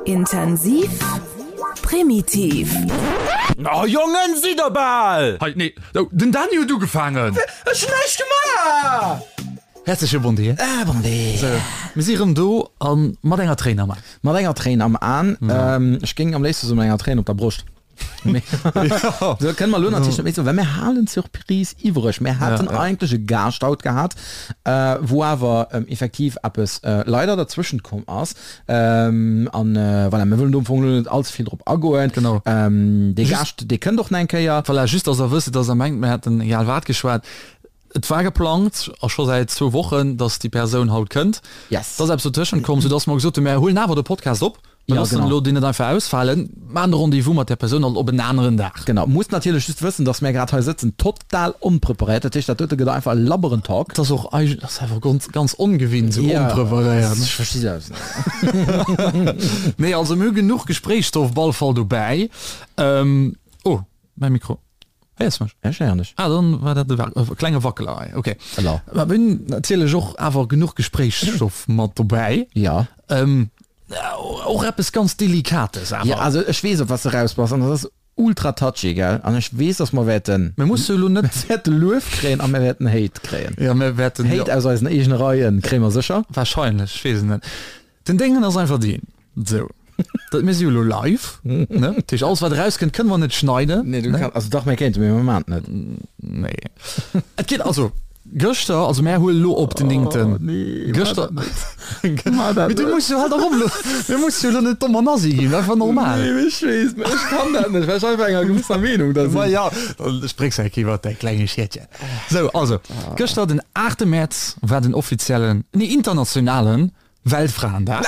Intensiv, primitiv. Oh Jongen, sidd der bal! Hei, nee, den Dany huet ugefaangen! Ech hunn näischt gemaach! Häerzleche Bon Dia. Ah, bon Dia. Sou, mir si rëm do a mat enger Tréin am An. Mat enger Tréin am An. Ech géing am léifste soen, mat enger Tréin op der Broscht. Sou kënne mer elo natierlech net méi soen, well mir halen d'Surprise iwwreg. Mir haten eigentlech e Gaascht haut gehat, wou awer effektiv eppes leider derzwëschent komm ass. An voilà, mir wëllen do am Fong elo net allze vill drop agoen. Genau. Dee Gaascht, dee kënnt och nach eng Kéier. Voilà, just dass Der wësst, dass Der mengt, mir hätten egal wat geschwat. Et war geplangt, a scho säit zwou Wochen, dass déi Persoun haut kënnt. Yes. Et ass eppes dotëschent komm, soudass mer gesot hunn, mir huelen awer de Podcast op. Mir Ja, loossen genau. elo deen net einfach ausfalen, maachen de Rendez-vous mat där Persoun alt op en aneren Dag. Genau. Musst natierlech just wëssen, dass mär grad hei sëtzen, total onpreparéiert. Dat heescht, dat dote gëtt einfach e labberen Talk. Et ass och eig-, ass einfach ganz, ganz ongewinnt, esou Ja, onpreparéiert, ne? ech versti selbst net. Nee, also mir hu genuch Gespréichsstoff op alle Fall dobäi. Oh, mäi Mikro. Héiers mech? Ech héieren dech. Ah, dann war dat e klenge Wackeler hei. Okay. Elo. Mä mir hunn natierlech och awer genuch Gespréichsstoff mat dobäi. Ja. Ähm, och eppes ganz Delikates awer. Ja, also ech weess, op wat s de raus bass, an dat ass ultra touchy, gell? An ech weess, dass mer wäerten. Mir musse elo net. Mir wäerte Luef kréien a mir wäerten Hate kréien. Ja, mir wäerten. Hate aus eisen eegene Reie kréie mer sécher. Wahrscheinlech, ech weess et net. Den Déngen ass einfach deen, sou, dat mir si jo elo live, ne? Dat heescht, alles wat erauskënnt, kënne mer net schneiden. Nee, du kann, also dach, mir kéinten, mee mir maachen et net. Nee. Et geet also, gëschter, also mär huelen elo op den néngten. Oh nee, gëschter. Maach dat Mee du net. muss jo halt och elo, mir musse jo elo net domm an assi ginn, einfach normal. Nee, mee ech weess, mee ech kann dat net, well ech einfach enger gewësser Meenung da Ma sinn. ja, dann spréchs eng Kéier iwwert däi klenge Schietchen. Sou, also, gëschter den aachte Mäerz war den offiziellen, nee internationalen Weltfraendag.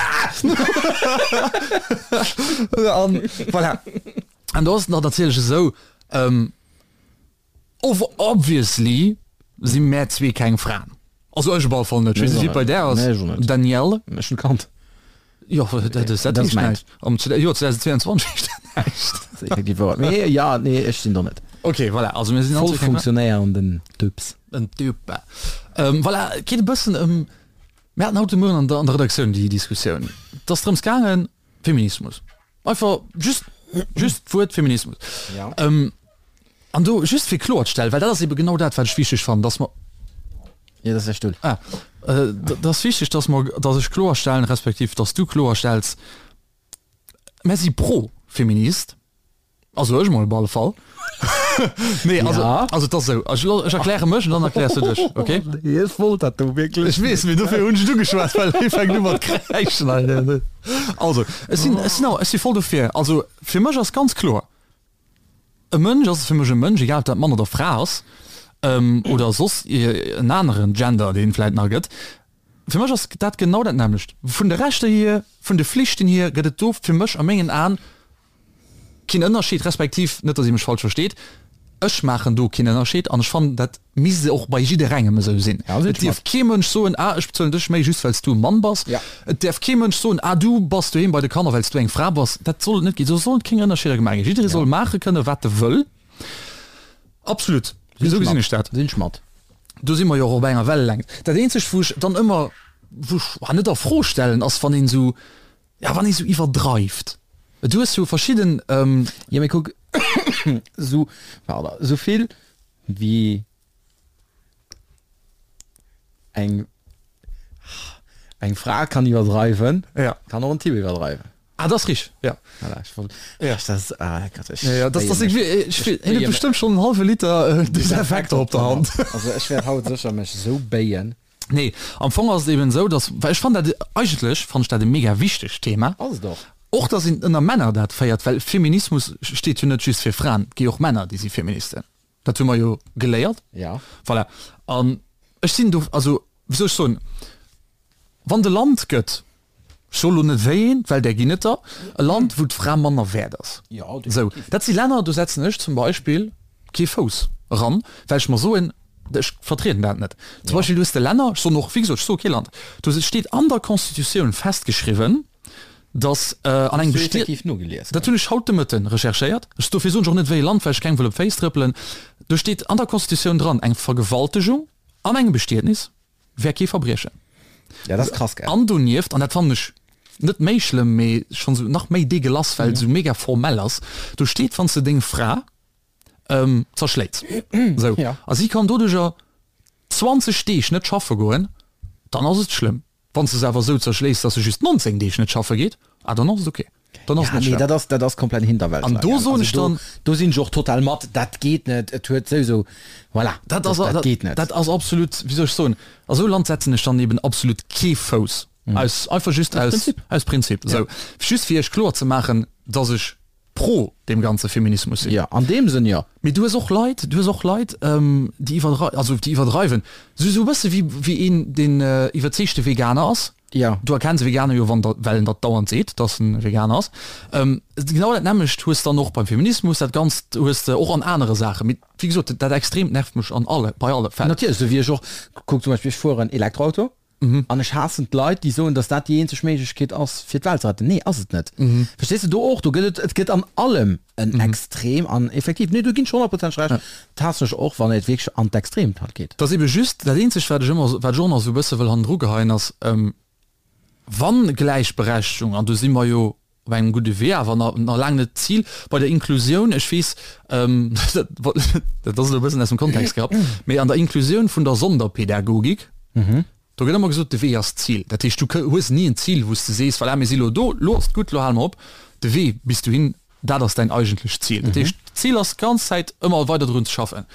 An voilà. An do ass et nach natierlech esou, ähm, obviously si mär zwee keng Fraen. Also ech op alle Fall net. Ech weess net, wéi et bei där ass, Nee, ech och net. Danielle. Ech hunn Kand. Jo, dat dat Dat heescht mäint. näischt. Am Joer 2022 heescht dat näischt. Dat ass effektiv wouer. Mee ja, nee, ech sinn do net. Okay, voilà. Also mir sinn Voll all zwee keng Fraen. funktionéierenden Typs. En Typ. Ähm, voilà, et geet e bëssen ëm Mir haten haut de Mueren an der, an der Redaktioun déi Diskussioun. Et ass drëms gaangen, Feminismus. Einfach just, just d'Wuert Feminismus. Ja. Ähm, an do just fir kloerzestellen, well dat ass ebe genau dat, wat ech wichteg fannen, dass mer, Ja, dat ass däi Stull. ah, äh, dat ass wichteg, dass mer, dass ech kloerstellen, respektiv dass du kloerstells, Mir si pro Feminist. Also ech mol op alle Fall. Nee, also, Ja. also et ass esou, ech, ech erkläre mech an dann erkläers du dech, okay? Nee, ech wollt dat do wierklech. Ech weess, mee dofir hunn ech et ugeschwat, well hie fänkt u mat kräischen hei. Also, ech sinn, ech sinn och, ech si voll dofir. Also fir mech ass ganz kloer, e Mënsch ass fir mech e Mënsch, egal ob dat Mann oder Fra ass, oder soss en aneren Gender, deen et vläit nach gëtt. Fir mech ass dat genau dat nämmlecht. Vun de Rechter hier, vun de Flichten hier gëtt et do fir mech a mengen Aen keen Ënnerscheed, respektiv, net datt Dir mech falsch versteet, ech maachen do keen Ënnerscheed an ech fannen, dat misst och bei jidderengem esou sinn. Ja, sinn Et ech dierf mat. kee Mënsch soen, ah ech bezuelen dech méi just well s du e Mann bass. Ja. Et däerf kee Mënsch soen, ah du bass doheem bei de Kanner well s du eng Fra bass. Dat soll et net ginn. Do sollen keng Ënnerscheeder gemaach ginn. Jidderee Ja. soll maache kënne wat e wëll. Absolut. Sinn Esou ech gesinn mat. ech dat. Sinn ech mat. Do si mer jo och op enger Wellelängt. Dat eenzegt wou ech dann ëmmer, wou ech, ah net a Fro stellen, ass wann een esou, Ja, wann ee sou iwwerdreift. Du hues jo verschidden. Jo, mee kuck, sou, pardon, sou vill wéi eng, eng Fra kann iwwerdreiwen, Ja. kann och en Typ iwwerdreiwen. Ah, dat ass richteg, ja. Voilà, ech wollt, Ja. ech, dat, ah Gott, ech Ja, ja, das, das, béie mech. ich, ich, Ech hien béie huet bestimmt schon en halwe Liter Desinfekter op der Hand. Also ech wäert haut sécher mech sou béien. Nee, am Fong ass et eben esou, dass, well ech fannen dat, eigentlech fannen ech dat e mega wichtegt Thema. Ass et och. Och dass een ënner Männer dat féiert, well Feminismus steet jo net just fir Fraen, et gi och Männer, déi si Feministen. Dat hu mer jo geléiert. Ja. Voilà. An ech sinn do, also wéi soll ech soen, wann et e Land gëtt, Ech soe lo net wéi een, well där ginn et der, e Land wou d'Fra manner wäert ass. Sou, dat si Länner, do setzen ech zum Beispill kee Fouss eran, well ech mer soen, ech vertrieden dat net. Zum Beispill du hues de Länner, ech soen och, wéi gesot, ech soe kee Land, do steet an der Constitutioun festgeschriwwen, datt an engem Bestiet, dat hunn ech haut de Mëtten recherchéiert, ech, dofir soen ech och net wéi e Land, well ech kengem wëll op d'Féiss trëppelen, do steet an der Constitutioun dran, eng Vergewaltegung an engem Bestietnis, wär kee Verbriechen. Ja, dat ass krass, gell? An donieft, an dat fannen ech. Net méi schlëmm, mee schonn esou nach méi deegelass, well et esou mega formell ass. Do steet, wann s de deng Fra zerschléits, esou, a si kann doduercher 20 Deeg net schaffe goen, dann ass et schlëmm. Wann s de se awer esou zerschléis, dass se just 19 Deeg net schaffe geet, ah dann ass et ok. Dann ass et net schlëmm. Nee, dat ass, dat ass komplett Hinterwäldler. An do soen ech dann. Do sinn ech och total mat, dat geet net, et huet souwisou, voilà, dat ass, dat geet net. Dat ass absolut, wéi soll ech soen, a sou e Land setzen ech dann eben absolut kee Fouss. Aus, einfach just aus Prinzip. Aus Prinzip. Ja. Sou, just fir iech kloer ze maachen, dass ech pro deem ganze Feminismus sinn. Ja, an deem Sënn jo. Mee du hues och Leit, du hues och Leit, déi iwwerdrei-, also déi iwwerdreiwen. Sou, sou e bësse wéi, wéi een, deen iwwerzeegte Veganer ass. Ja. Du erkenns e Veganer jo, wann der, well en dat dauernd seet, dass en Veganer ass. Genau dat nämmlecht hues dann och beim Feminismus, dat Ganzt hues de och an anere Saachen. Mee wéi gesot, dat Extreemt nervt mech an alle, bei alle Fäll. Natierlech, sou wéi ech och, kuck zum Beispill, ech fueren Elektroauto. An ech haassen d'Leit, déi soen, dass dat déi eenzeg Méiglechkeet ass, fir d'Welt ze retten. Nee, ass et net. Verstees de? Do och, do gëtt et, et gëtt an allem en Extrem an effektiv, nee, do ginn ech honnertprozenteg Recht, dat haassen ech och, wann et wierklech an d'Extremt halt geet. Et ass ebe just, dat eenzegt, wat ech ëmmer, wat ech och nach esou e bësse wëll hannendru geheien, ass, wann Gläichberechtigung, an do si mer jo op engem gudde Wee, awer nach laang net d'Zil bei der Inklusioun. Ech weess, dat ass elo e bëssen aus dem Kontext gerappt, mee an der Inklusioun vun der Sonderpädagogik, do gëtt ëmmer gesot, de Wee ass d'Zil. Dat heescht, du hues ni en Zil, wou s de sees, voilà, mir si elo do, elo ass et gutt, elo hale mer op. De Wee bis dohin, dat ass däin eigentlecht Zil. Dat heescht, d'Zil ass d'ganz Zäit ëmmer weider drun ze schaffen.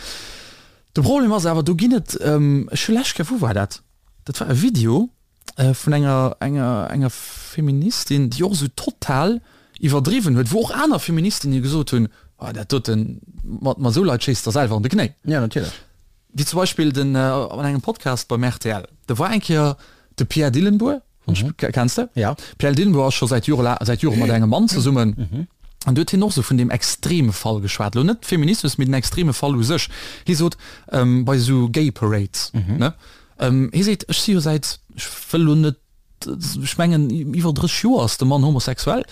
De Problem ass awer, do ginn et, ech hu lescht Kéier, wou war dat? Dat war e Video, vun enger enger enger Feministin, déi och esou total iwwerdriwwen huet, wou och aner Feministinnen gesot hunn, oh dat doten, mat mat esou Leit schéisst der selwer an de Knéi. Ja, natierlech. Wéi zum Beispill den an engem Podcast beim rtl, do war eng Kéier de Pierre Dillenbourg, kenns de? Ja. Pierre Dillenbourg ass scho säit Jore säit Jore mat engem Mann zesummen. An do huet hien och esou vun deem extreme Fall geschwat, elo net Feminismus, mee den extreme Fall u sech. Hie sot, bei esou Gay Parades, ne, Hie seet, Ech si jo säit, ech wëll elo net, ech mengen iwwer 30 Joer ass de Mann homosexuell.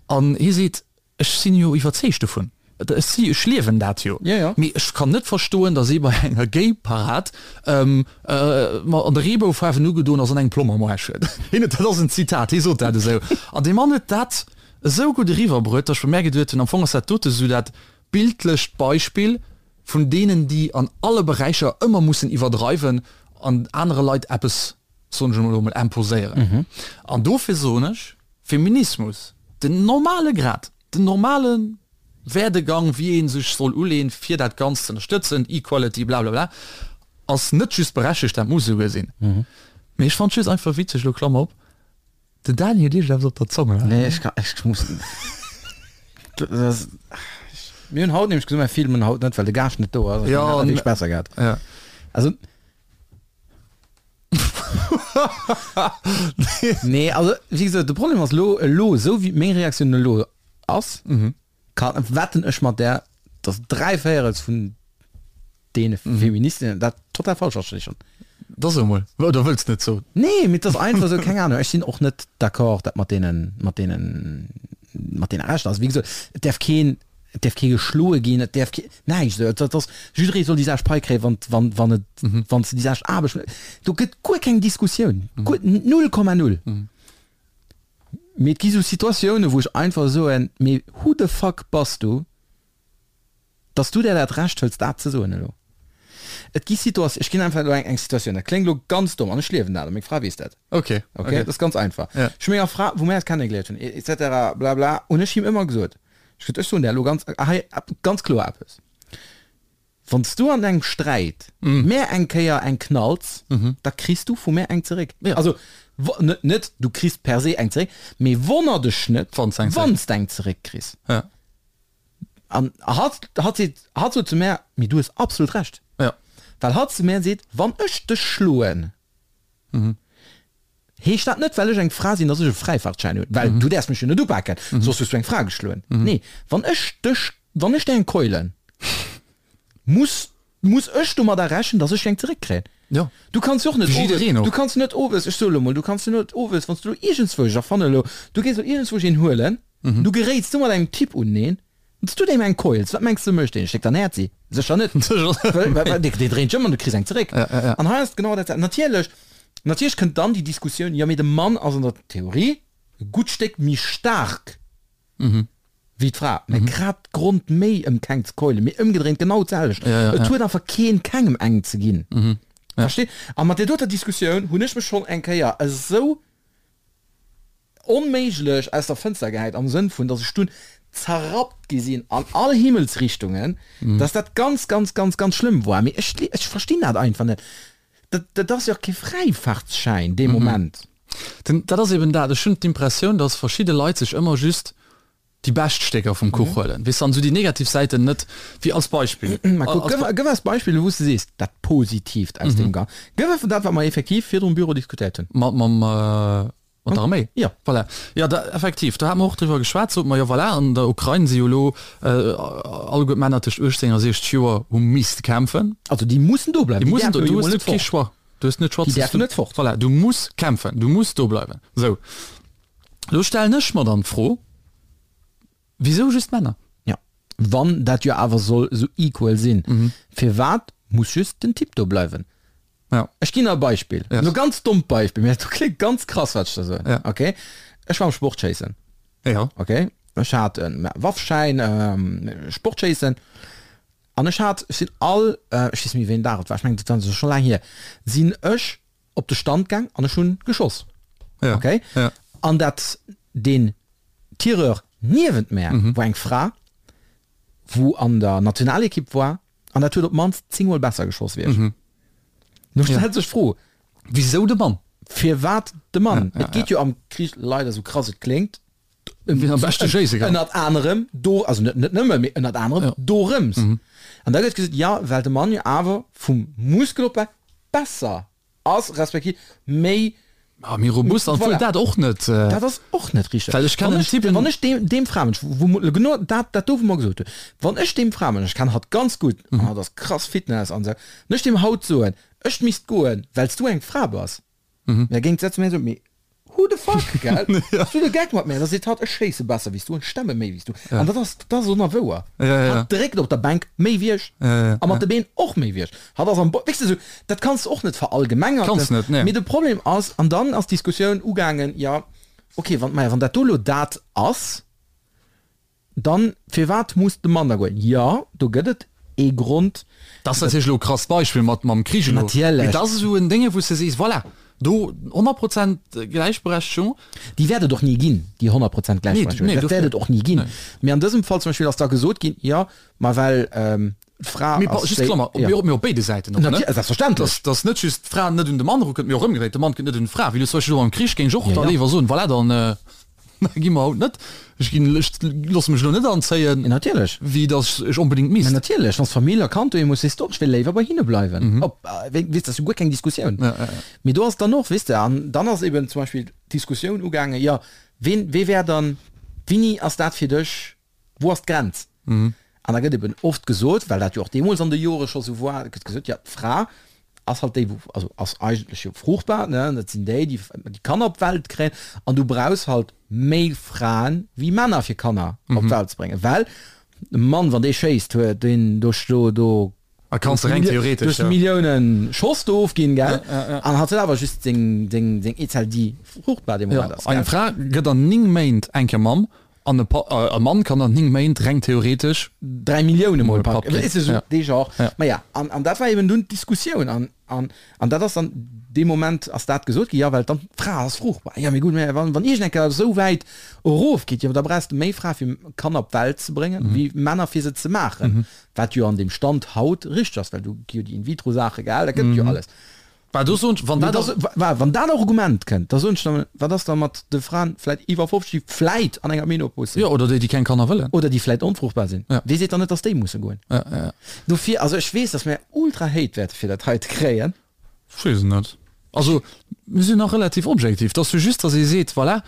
An hie seet, Ech sinn jo iwwerzeegt dovun, ech si, ech liewen dat jo. Mee ech kann net verstoen, datt ee bei enger Gay-Parad ma an de Reeboufaarwen ugedoen ass an eng Plomm am Aarsch huet. Hien huet, dat ass en Zitat, hie sot dat esou. An dee Mann huet dat esou gutt eriwwerbruet, datt ech bei mär geduet hunn, am Fong ass dat dote esou dat bildlecht Beispill, vun deenen déi an alle Beräicher ëmmer mussen iwwerdreiwen an anere Leit eppes, soen ech elo emol, imposéieren. An dofir soen ech, Feminismus, den normale Grad, den normale Werdegang, wéi ee sech soll uleen, fir dat Ganzt ze ënnerstëtzen, Equality, blablabla, ass net just berechtegt, dat muss esouguer sinn. Mee ech fannen et just einfach witzeg, elo Klammer op, Den Dani huet iergendeppes op der Zong, oder? Nee, ech kann, ech muss. Das, mir hunn haut nämlech gesot, mir filmen haut net, well de Gaascht net do ass. Ja, an wierklech besser gehat. Ja. Also. Nee, also, wéi gesot, de Problem ass elo, elo, esou wéi meng Reaktioun elo ass, kann, wetten ech mat där, dass dräivéierels vun deene Feministinnen dat total falsch verstinn schon. Da so mol, oder wëlls net soen? Nee, mee et ass einfach esou, keng Ahnung, ech sinn och net d'accord dat mat deenen, mat deenen, mat deene Rechter. Also wéi gesot, et däerf keen, et däerf kee geschloe ginn, et däerf kee, näischt esou. Et ass, jidderee soll déi selwecht Pai kréien, wann, wann, wann et, wann s de déi selwecht Aarbecht, do gëtt guer keng Diskussioun, guer, null Komma null. Mee et gi sou Situatiounen, wou ech einfach soen, mee who the fuck bass du, Dass du der dat Recht hëls dat ze soen elo. Et gi Situat, ech ginn einfach elo eng eng Situatioun, dat kléngt elo ganz domm an ech liewen dat a meng Fra weess dat. Ok, Ok, dat ass ganz einfach. Ja. Ech hu menger Fra, wou mär eis kennegeléiert hunn, et cetera bla bla, hunn ech him ëmmer gesot, ech gesot, ech soen der elo ganz hei ganz kloer eppes, Wann s du an engem Sträit mär eng Kéier eng knalls, da kriss du vu mär eng zeréck. Ja. Also net net du kriss per se eng zeréck, mee wonner dech net, Wann s eng zeréck. wann s d'eng zeréck kriss. Ja. An hatt, hatt seet, hatt sot zu mär, mee du hues absolut Recht. Ja. Well hatt zu mär seet, wann ech dech schloen, heescht dat net, well ech eng Fra sinn, datt ech e Fräifaartschäin hunn, well du däerfs mech jo net upaken, soss hues du eng Fra geschloen. Nee, wann ech dech, wann ech der eng keulen, muss, muss ech domadder rechnen, datt ech eng zeréckkréien. Ja. Du kanns jo och net Wéi owes, jiddereen och. du kanns net owes, ech soe lo mol, du kanns jo net owes, wann s du lo iergendzwousch, ech erfanne lo, du gees lo iergendzwousch een huelen, du geréits du mat engem Typ uneneen, wann s du deem eng keuls, wat mengs de mécht deen? Schléckt der en Häerzi? Sécher net. Sécher net. Well dee dréint sech ëm an du kriss eng zeréck. Ja, ja, ja. An hei ass et genau dat selwecht. Natierlech, natierlech kënnt dann déi Diskussioun, jo mee de Mann ass an der Theorie. E gutt Stéck méi staark wéi d'Fra, mä grad Grond méi ëm keng ze keulen, mee ëmgedréint genau d'selwecht. Et huet einfach keen kengem eng ze ginn. Versteet? A mat där doter Diskussioun hunn ech mech schonn eng Kéier esou onméiglech aus der Fënster gehäit, am Sënn vun, datt ech dunn zerrappt gi sinn an all Himmelsrichtungen, datt dat ganz, ganz, ganz, ganz schlëmm war. Mee ech, ech verstinn dat einfach net. Dat, dat ass jo och kee Fräifaartsschäin dee Moment. Den, dat ass eben dat. Ech hunn d'Impressioun, datt verschidde Leit sech ëmmer just déi bescht Stécker vum Kuch huelen, weess de, an esou déi negativ Säiten net, wéi als Beispill. Mä kuck, gëff, gëff eis Beispiller, wou s de sees, dat Positiivt aus deem Gan. Gëff einfach dat, wat mer effektiv virdru um Büro diskutéiert hunn. Mat, mam, Mat der Arméi? Jo. Voilà. Jo, da, effektiv, do hate mer och driwwer geschwat, sot mer, jo voilà, an der Ukrain si jo elo alleguer d'Männer tëscht 18 a 60 Joer hu misste kämpfen. Also déi mussen do bleiwen, déi mussen do, du hues net kee Choix, du hues net Choix, déi däerfen net fort. Voilà, du muss kämpfen, du muss do bleiwen. Sou, elo stellen ech mer dann d'Fro, Wisou just Männer? Jo, wann dat jo awer soll esou equal sinn, firwat muss just den Typ do bleiwen? Ja. Ech ginn der e Beispill, Yes. e ganz dommt Beispill, mä dat kléngt ganz krass, wat ech da soen. Ja. Okay, ech war am Sportschéissen. Ja. Okay, ech hat e Waffschäin, Sportschéissen, an ech hat, ech sinn all, ech weess net méi wéi en Dag et war, ech mengen dat war scho laang hier, sinn ech op de Stand gaang an ech hunn geschoss. Ja. Okay? Ja. An dat den Tireur niewent mär mhm. war eng Fra, wou an der Nationalekipp war an dat huet op d'mannst 10 mol besser geschoss wéi ech. Mhm. Nu stellt sech d'Fro, Wisou de Mann? Firwat de Mann? Ja, ja, Et geet jo am Krich leider, sou krass et kléngt, Wien am beschte schéisse kann. Ënnert anerem do, also net net nëmme, mee ënnert anerem Ja. dorëms. An da gëtt gesot, jo, well de Mann jo awer vum Muskelopbau besser ass, respektiv méi. Ah, méi robust, an Voilà. obwuel dat och net. Dat ass och net richteg. Well ech kennen Wann ech, Typen. wann ech deem, deem Framënsch, wou mo genau dat, dat do wou mer gesot hunn, wann ech deem Framënsch, ech kennen hatt ganz gutt, an hatt ass krass Fitness an esou, wann ech deem haut soen, ech misst goen, well s du eng Fra bass, Da géing d'Sätz méi esou, mee who the fuck, gell? Hues du de Geck mat mär? Da seet hatt, ech schéisse besser wéi s du an stemme méi wéi s du. An dat ass, dat ass onerwouer. Hatt dréckt op der Bänk méi wéi ech a mat de Been och méi wéi ech. Hatt ass am Bo, weess de esou, dat kanns de och net verallgemengerten. Kanns net, nee. Mee de Problem ass, an dann ass d'Diskussioun ugaangen, jo, okay, wann, maja, wann dat do elo dat ass, Dann, firwat muss de Mann da goen? Jo, do gëtt et ee Grond. Dat ass natierlech elo e krasst Beispill mat mam Krich elo. Natierlech. Mee dat ass esou en Dénge wou s de sees, voilà, do 100 Prozent Gläichberechtegung. Déi wäert et och ni ginn, déi 100 Prozent Gläichberechtegung. Nee, Dat wäert et och ni ginn. Nee. Mee an dësem Fall zum Beispill ass da gesot ginn, jo, ma well d'Fra Mee ass just déi, Klammer, jo. mee op béide Säiten och, ne? Natierlech, selbstverständlech. Dass, dass net just d'Fra net un de Mann erukënnt, mee och ëmgedréit, de Mann kënnt net un d'Fra. Wéi elo zum Beispill elo am Krich géing ech och Ja, da ja. léiwer soen, voilà, dann. Gi mer haut net. Ech ginn, ech loosse mech elo net anzéien. Mee natierlech. Wéi datt ech onbedéngt misst. Mä natierlech, wann s Famill a Kand doheem hues, sees de och, ech wéll léiwer bei hinne bleiwen. Op, weess, dat ass jo guer keng Diskussioun. Mee do ass dann och, weess de, an dann ass eben zum Beispill d'Diskussioun ugaangen, jo, ween, wee wär dann, wéini ass dat fir dech Wou ass d'Grenz? An da gëtt eben oft gesot, well dat jo och deemools an de Jore scho sou war, gëtt gesot, jo d'Fra ass halt déi, wou, also ass eigentlech jo fruchtbar, ne, dat sinn déi, déi déi Kanner op d'Welt kréien an du brauchs halt méi Fraen wéi Männer fir Kanner op d'Welt ze bréngen, well e Mann, wann dee schéisst, huet deen do, do A kanns de reng theoretesch, ja. Milliounen Schoss do ofginn, gell? An hat huet awer just seng, seng, seng Eezell, déi fruchtbar dee Moment ass, gell? Eng Fra gëtt an 9 Méint eng Kéier Mamm an e Pa, e Mann kann an 9 Méint reng theoretesch. 3 Millioune mol Papp Papp ginn. Weess de, sou dee Genre. Maja, an, an dat war eben dunn d'Diskussioun. An, an, an dat ass dann, dee Moment ass dat gesot ginn, jo, well dann d'Fra ass fruchtbar. Jo, mee gutt, mä wann, wann iergend eng Kéier esou wäit erofgeet, jo, da brauchs de méi Frae fir Kanner op d'Welt ze bréngen, wéi Männer fir se ze maachen. Wat jo an deem Stand haut richteg ass, well do gi jo déi In-vitro-Saache gehal, dat gëtt et jo alles. Bah, do soen ech, wann Mee dat da, wa, wann dat Argument kënnt, da soen ech dann, wat ass da mat de Fraen vläit iwwer 50, déi vläit an enger Menopos sinn? Jo, oder déi, déi keng Kanner wëllen. Oder déi vläit onfruchtbar sinn. Ja. Wee seet dann net, dass déi musse goen? Ja, ja, ja. Dofir, also ech weess, dass mir ultra Hate wäerte fir dat heite kréien. Ech weess et net. Also, mir sinn nach relativ objektiv. Et ass jo just, dass ee seet, voilà,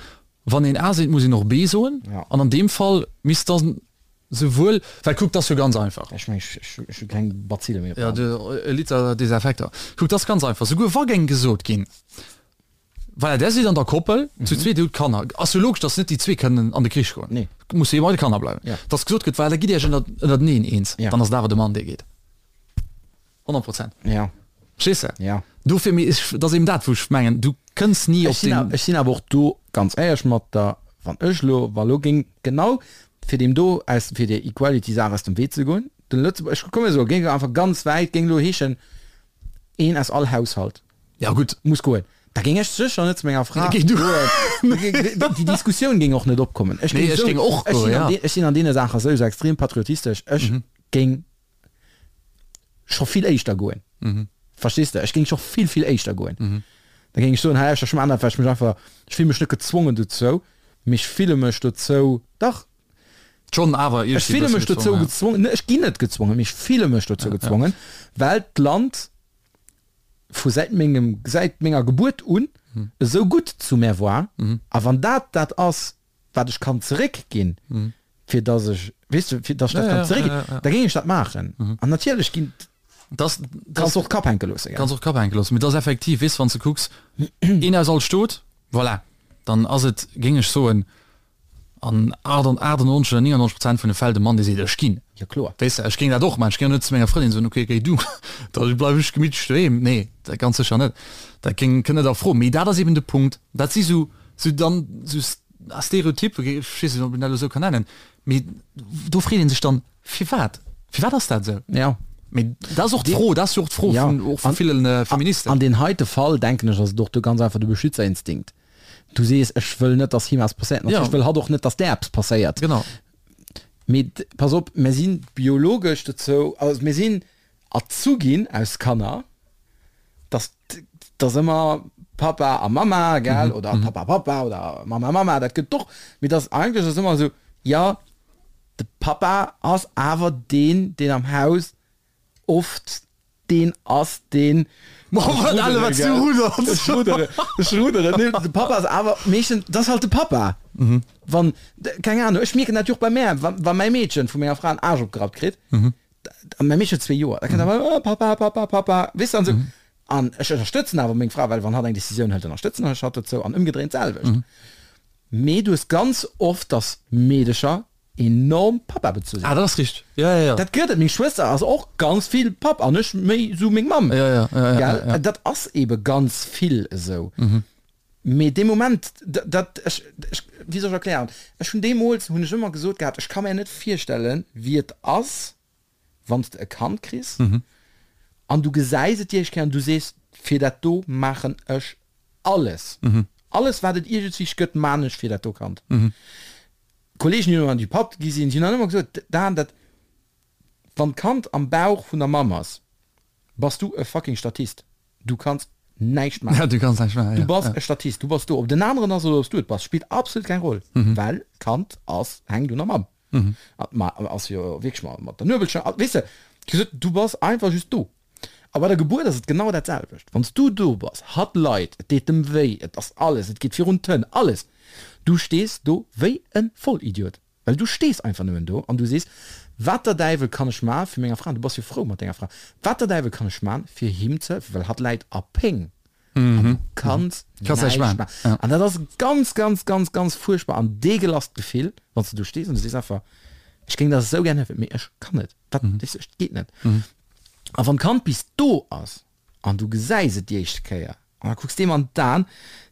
wann een A seet, muss een och B soen. Ja. An an deem Fall misst dann Souwuel, well kuck, 't ass jo ganz einfach. Ech meng, ech hu keng Bazille méi op der Ja, Hand. de, e Liter Desinfekter. Kuck, 't ass ganz einfach, souguer wa géing gesot ginn, voilà, där sidd an der Koppel, zu zweet, dir hutt Kanner, ass jo logesch, dass net déi zwee kënnen an de Krich goen. Nee. Musse jo bei de Kanner bleiwen. Ja. Dass gesot gëtt, voilà, da gitt Iech ënner, ënnerteneen eens, Ja. dann ass et awer de Mann, dee geet. 100 Prozent. Ja. Verstees de? Ja. Dofir, mee ech, dat ass eben dat, wou ech mengen, du kënns ni op Ech sinn, den. ech sinn awer och do ganz éierlech mat der, wann ech elo, wa lo géing genau fir deem do aus, fir där Equality-Saach aus dem Wee ze goen, den Lëtzebuerg, ech komme soe, géing einfach ganz wäit, géing elo heeschen, een aus all Haushalt. Ja gutt. Muss goen. Da géing ech sécher net zu menger Fra Géing du. goen. Déi Diskussioun géing och net opkommen. Ech Nee, géing ech sou, géing och ech goen, sinn an ja. dee, ech sinn an deene Saache souwisou extrem patriotistesch. Ech géing scho vill éischter goen. Verstees de? Ech géing scho vill, vill éischter goen. Da géing ech soen, hei, ech maachen dat, well ech mech einfach, ech fille mech net gezwongen dozou, mee ech fille mech dozou, dach, Schonn awer ech fille mech dozou gezwongen, ech ginn net gezwongen, mee ech fille mech dozou gezwongen, well d'Land vu säit mengem, säit menger Gebuert un esou gutt zu mär war. A wann dat dat ass, wat ech kann zeréckginn, fir datt ech, weess de, fir datt ech dat kann zeréckginn, da géing ech dat maachen. An natierlech ginn, Das, kanns de och d'Kap hänke loosse, gell? Kanns och d'Kap hänke loossen. Mee et ass effektiv, weess de, wann s de kucks, een aus all Stot, voilà, dann ass et, géing ech soen, an 98 oder 99 Prozent vun de Fäll de Mann, dee seet, ech ginn. Jo, kloer. Weess de, ech géing dat och maachen. Ech géing och net zu menger Frëndin soen, okay, géi du, da bleiw ech gemittlech doheem. Nee, dat ganz sécher net. Dat géing, kënnt net a Fro. Mee dat ass eben de Punkt, dat si sou, sou dann sou Stereotypen, ech weess net, ob een dat elo sou kann nennen, mee do freet ee sech dann, Firwat? Firwat ass dat esou? Jo. Mee dat ass och d'Fro, dat ass jo och d'Fro vun, och vu ville Feministen. An deen heite Fall, denken ech, ass et och do ganz einfach de Beschützerinstinkt. Du sees, ech wëll net, dass him eppes passéiert. Natierlech wëll hatt och net, dass där eppes passéiert. Genau. Mee pass op, mir si biologesch dozou, also mir sinn erzu ginn aus Kanner, dass dass ëmmer Papa a Mama, gell, oder Papa, Papa oder Mama, Mama, dat gëtt och, mee dass eigentlech ass ëmmer esou, jo, de Papa ass awer deen, deen am Haus oft deen ass deen De Papa ass awer meeschtens, dat ass halt de Papa. Wann, keng Ahnung, ech mierken dat jo och bei mär, wa wa mäi Meedchen vu menger Fra en Aarsch opgerappt kritt, a mäi Meedchen huet zwee Joer, da kënnt awer, oh Papa, Papa, Papa, weess de, an esou. An ech ënnerstëtzen awer meng Fra, well wann hatt eng Decisioun hëlt, ënnerstëtzen ech hatt dozou an ëmgedréint d'selwecht. Mee du hues ganz oft, dass Meedecher enorm Papa bezu sinn. Ah, dat ass richteg. Ja, ja, ja. Dat gëtt et. Meng Schwëster ass och ganz vill Papp an ech méi sou meng Mamm. Ja, ja, ja, ja, Gell? ja. Dat ass ebe ganz vill esou. Mee dee Moment, dat, ech, ech, wéi soll ech erklären? Ech hunn deemools, hunn ech ëmmer gesot gehat, ech ka mär net virstellen, wéi et ass, wann s de e Kand kriss an du gesäis et déi éischt Kéier an du sees, fir dat do maachen ech alles. Alles wat et iergendswéi gëtt, maan ech fir dat do Kand. Kollegen déi elo an déi Papp gi sinn, déi hunn dann ëmmer gesot, Dan, dat, wann d'Kand am Bauch vun der Mamm ass, bass du e fucking Statist. Du kanns näischt maachen. Ja, du kanns näischt maachen, Du bass e Statist, du bass do. Ob den aneren ass oder ob s du et bass, spillt absolut keng Roll, well d'Kand ass, hänkt un der Mamm. An d'Mamm ass jo wierklech mat der Nuebelschnur, weess de, gesot, du bass einfach just do. A bei der Gebuert ass et genau dat selwecht. Wann s du do bass, hatt leit, et deet em wéi, et ass alles, et geet virun d'Hënn, alles. Du stees do wéi e Vollidiot, well du stees einfach nëmmen do an du sees, Wat der Däiwel kann ech man fir menger Fra, an du bass jo frou mat denger Fra, wat der Däiwel kann ech man fir him ze hëllefen, well hatt läit a Péng an du kanns näischt man. An dat ass ganz, ganz, ganz, ganz fuerchtbar an deegelast Gefill, wann s du do stees an du sees einfach, Ech géing der esou gär hëllefen, mee ech kann net, dat, weess de, et geet net. A wann d'Kand bis do ass an du gesäis et déi éischte Kéier an da kucks deem an d'Aen,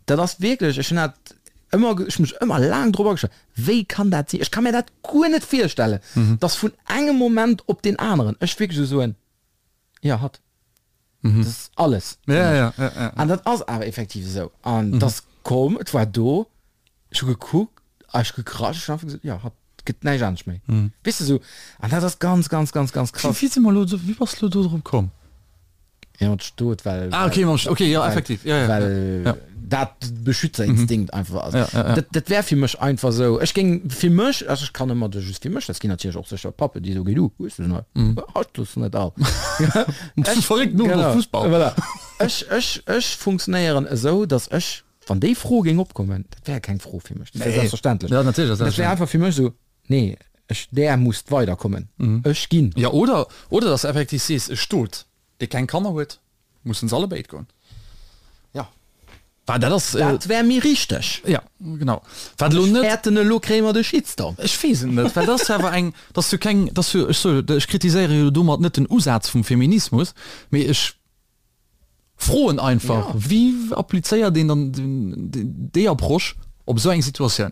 dat ass wierklech, ech hunn dat ëmmer, ech hunn mech ëmmer laang drop agestallt, wéi kann dat sinn? Ech ka mär dat guer net virstellen, dass vun engem Moment op deen aneren ech wierklech esou soen, jo hatt, dat ass alles fir mech. An dat ass awer effektiv esou. An et ass komm, et war do, Ech hu gekuckt a ech hu gekrasch, ech hu einfach gesot, jo, hatt gëtt näischt anescht méi. Weess de sou, an dat ass ganz, ganz, ganz, ganz krass. Wéi si mer elo, wéi bass de elo do drop komm? Jo, mat Stot, well. Ah, okay, mam Stot, okay, jo, effektiv, jo, jo, well jo. dat Beschützerinstinkt einfach ass. Ja, ja, ja. Dat, dat wär fir mech einfach sou. Ech géing fir mech, also ech kann ëmmer just fir mech, dat ginn natierlech och sécher Pappen, déi soe, Géi du, hues du se net, hatt hues du net all. Bist du verréckt, no Genau, Fussball. voilà. Ech, ech, ech funktionéieren esou, datt ech Wann déi Fro géing opkommen, dat wär keng Fro fir mech, dat wär selbstverständlech. Ja, natierlech ass Dat wär einfach fir mech esou, nee, ech, där musst weiderkommen, ech ginn. Ja, oder, oder dass de effektiv sees, e Stot, dee keng Kanner huet, mussen se allebéid goen. Ja. Well dat ass. Dat wär méi richteg. Ja, genau. Wat elo net. Ech fäerten, elo kréie mer de Shitstorm. Ech weess et net, well dat ass jo awer eng, dat ass jo keng, dat ass jo, ech soe, ech kritiséiere jo domat net den Usaz vum Feminismus, mee ech. Froen einfach, wéi applizéiert een dann déi Approche op esou eng Situatioun?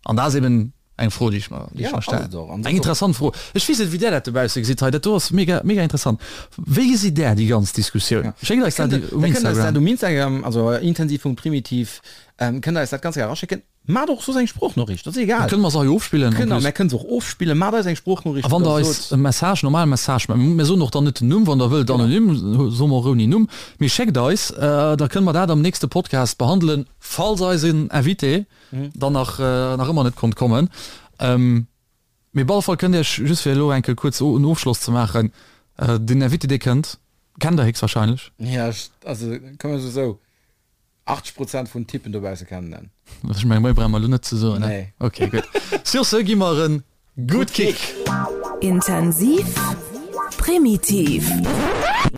An dat ass eben eng Fro, déi ech mer, déi ech mer stellen. Eng interessant Fro. Ech weess net, wéi Där dat dobausse gesitt hei. Dat do ass mega, mega interessant. Wéi gesitt Där déi ganz Diskussioun? Schéckt eis dat um Instagram. Um Instagram, also intensiv.primitiv, kënnt Der eis dat ganz gär eraschécken. Maacht och soss eng Sproochnoriicht, dat ass egal. Kënne mer se hei ofspillen en plus. Mär kënne se och ofspillen. Maacht eis eng Sproochnoriicht, A wann der eis e Message, normale Message, mär soen och dann net den Numm, wann der wëllt anonym, soe mer och ouni Numm, mee schéckt eis, da kënne mer dat am nächste Podcast behandelen, falls eisen Invité dann nach nach ëmmer net konnt kommen. Mee op alle Fall kënnt Iech, just fir elo eng Kéier kuerz en Ofschloss ze maachen, den Invité dee kënnt, kennt der héchstwahrscheinlech. Jo, also komm ech esou. 80 Prozent vun Typen dobausse kennen en. Ech mengen, méi brauche mer elo net ze soen, ne? Nee. Ok, gutt. Sur ce gi mer en Good Kick! Intensiv, primitiv.